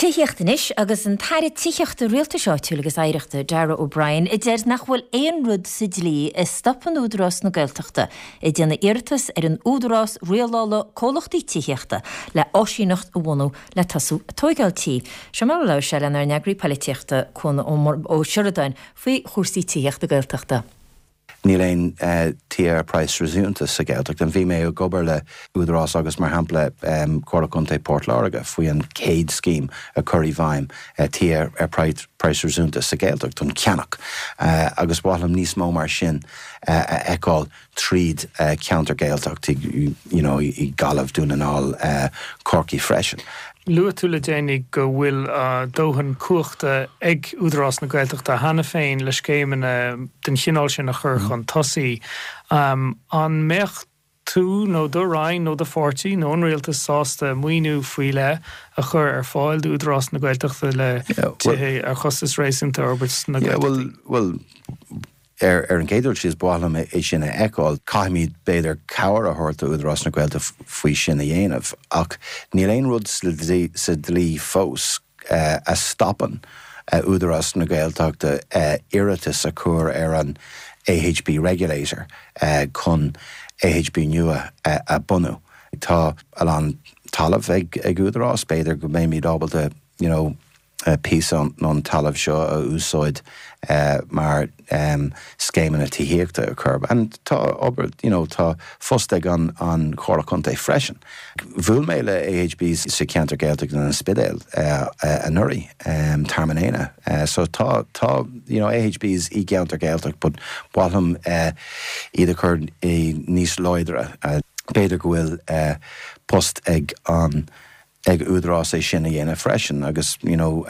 Tithíocht anois agus an tAire Tithíochta, Rialtais Áitiúil agus Oidhreachta, Darragh O'Brien, a deir nach bhfuil aon rud sa dlí a stopann Údarás na Gaeltachta ag déanamh iarratas ar an Údarás Rialála Comhlachtaí Tithíochta le áisíneacht a bhunú le tosú ag tóigeáil tí. Seo mar a labhair sé lenár n-eagraí poilitíochta, Cuan Ó Seireadáin, faoi chúrsaí tithíochta Gaeltachta. Níl aon tithe ar praghas réasúnta sa Ghaeltacht. Bhí mé ag obair le Údarás agus mar shampla Comhairle Contae Port Láirge faoi an chéad scéim a chur i bhfeidhm tithe ar praghas réasúnta sa Ghaeltacht don cheannach agus ba mhaith liom níos mó mar sin a fheiceáil tríd ceantar Gaeltacht you know i Gaillimh, Dún na nGall, Corcaigh freisin. Luaigh tú le déanaí go bhfuil dóthain cumhachta ag Údarás na Gaeltachta cheana féin le scéimeanna den chineál sin a chur chun tosaigh. An mbeadh tú nó do Roinn nó do pháirtí nó an Rialtas sásta maoiniú faoi leith a chur ar fáil d'Údarás na Gaeltachta le tithe ar chostas réasúnta a fhorbairt sna Gaeltachtaí? Bhuel, Ar an gcéad dul síos, ba mhaith liom é sin a fheiceáil. Caithfimid, b'fhéidir, cabhair a thabhairt do Údarás na Gaeltachta faoi sin a dhéanamh. Ach níl aon rud sa dlí fós a stopann Údarás na Gaeltachta iarratas a chur ar an AHB Regulator chun AHB nua a bhunú. Tá a lán talamh ag Údarás, b'fhéidir go mbeimid ábalta, you know, píosa den talamh seo a úsáid mar scéimeanna tithíochta a chur. And tá obair, you know, tá phost ag an an Chomhairle Contae freisin. Bhuail mé le AHBs sa cheantar Gaeltachta in An Spidéal anuraidh, Tearmann Éanna. So tá, tá, you know, AHBs i gceantar Gaeltacht but ba mhaith liom iad a chur níos láidre. B'fhéidir go bhfuil post ag an ag Údarás é sin a dhéanamh freisin agus you know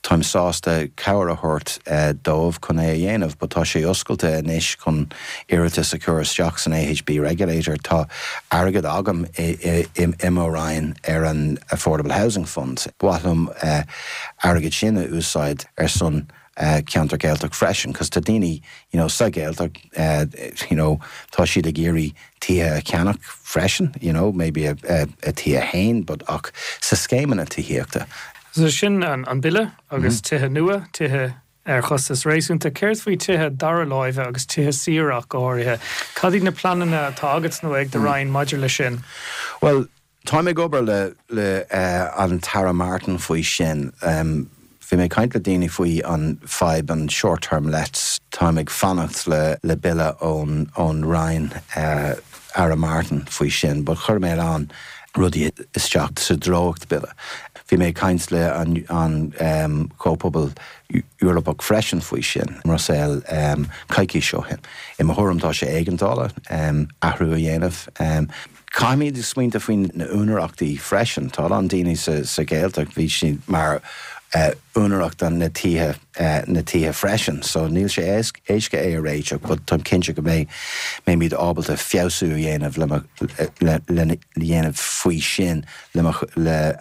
táim sásta cabhair a thabhairt dóibh chun é a dhéanamh but tá sé oscailte anois chun iarratas a chur isteach san AHB Regulator. Tá airgead agam i i mo Roinn ar an Affordable Housing Fund. Ba mhaith liom airgead sin a úsáid ar son ceantar Gaeltacht freisin cos tá daoine you know sa Ghaeltacht you know tá siad ag iarraidh tithe a cheannach freisin you know maybe a a tithe féin but ach sa scéimeanna tithíochta. So sin an bille agus tithe nua, tithe ar chostas réasúnta. Céard faoi tithe dara láimhe agus tithe saoire ach go háirithe? Cad iad na pleananna atá agat nó ag do Roinn maidir leis sin? Bhuel, Táim ag obair le le an tAire Martin faoi sin. Bhí mé ag caint le daoine faoi an fadhb an short term lets. Táim ag fanacht le le bille ón ón Roinn Aire Martin faoi sin but chuir mé a lán rudaí isteach sa dréacht bille. Bhí mé ag caint le an an Comhphobal Eorpach freisin faoi sin i mBruiséil coicís ó shin. I mo thuairim tá sé éigeandála athrú a dhéanamh. Caithfimid smaointeamh faoi na úinéireachtaí freisin. Tá a lán daoine sa Ghaeltacht, bhí siad mar úinéireacht na tithe na tithe freisin. So níl sé éasca é a réiteach but táim cinnte go mbeidh mbeimid ábalta feabhsú a dhéanamh le mo le le dhéanamh faoi sin le mo le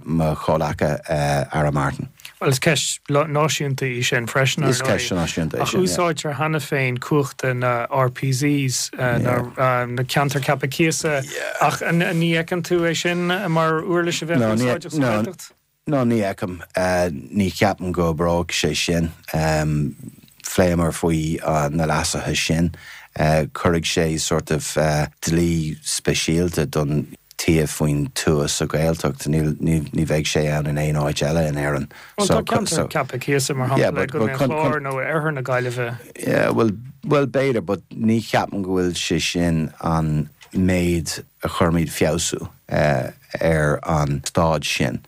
mo chomhleaca Aire Martin. Bhuel, is ceist náisiúnta í sin freisin, ar ndóigh. Is ceist náisiúnta í sin, yeah. Ach úsáidtear cheana féin cumhachta na RPZs, na Ceantair Ceaptha Cíosa, ach ní fheiceann tú é sin mar uirlis a bheadh úsáideach sa Ghaeltacht? No, ní fheicim. Ní cheapaim go oibreoidh sé sin. Phléamar faoi na leasuithe sin. Cuirfidh sé sort of dlí speisialta don tithe faoin tuath sa Ghaeltacht. Ní bheidh sé ann in aon áit eile in Éirinn. Bhuel, tá ceantar ceaptha cíosa, mar shampla, i gContae an Chláir nó i oirthear na Gaillimhe. Yeah, bhuel, bhuel b'fhéidir, but ní cheapaim go bhfuil sé sin an méid a chuirfimid feabhsú ar an staid sin.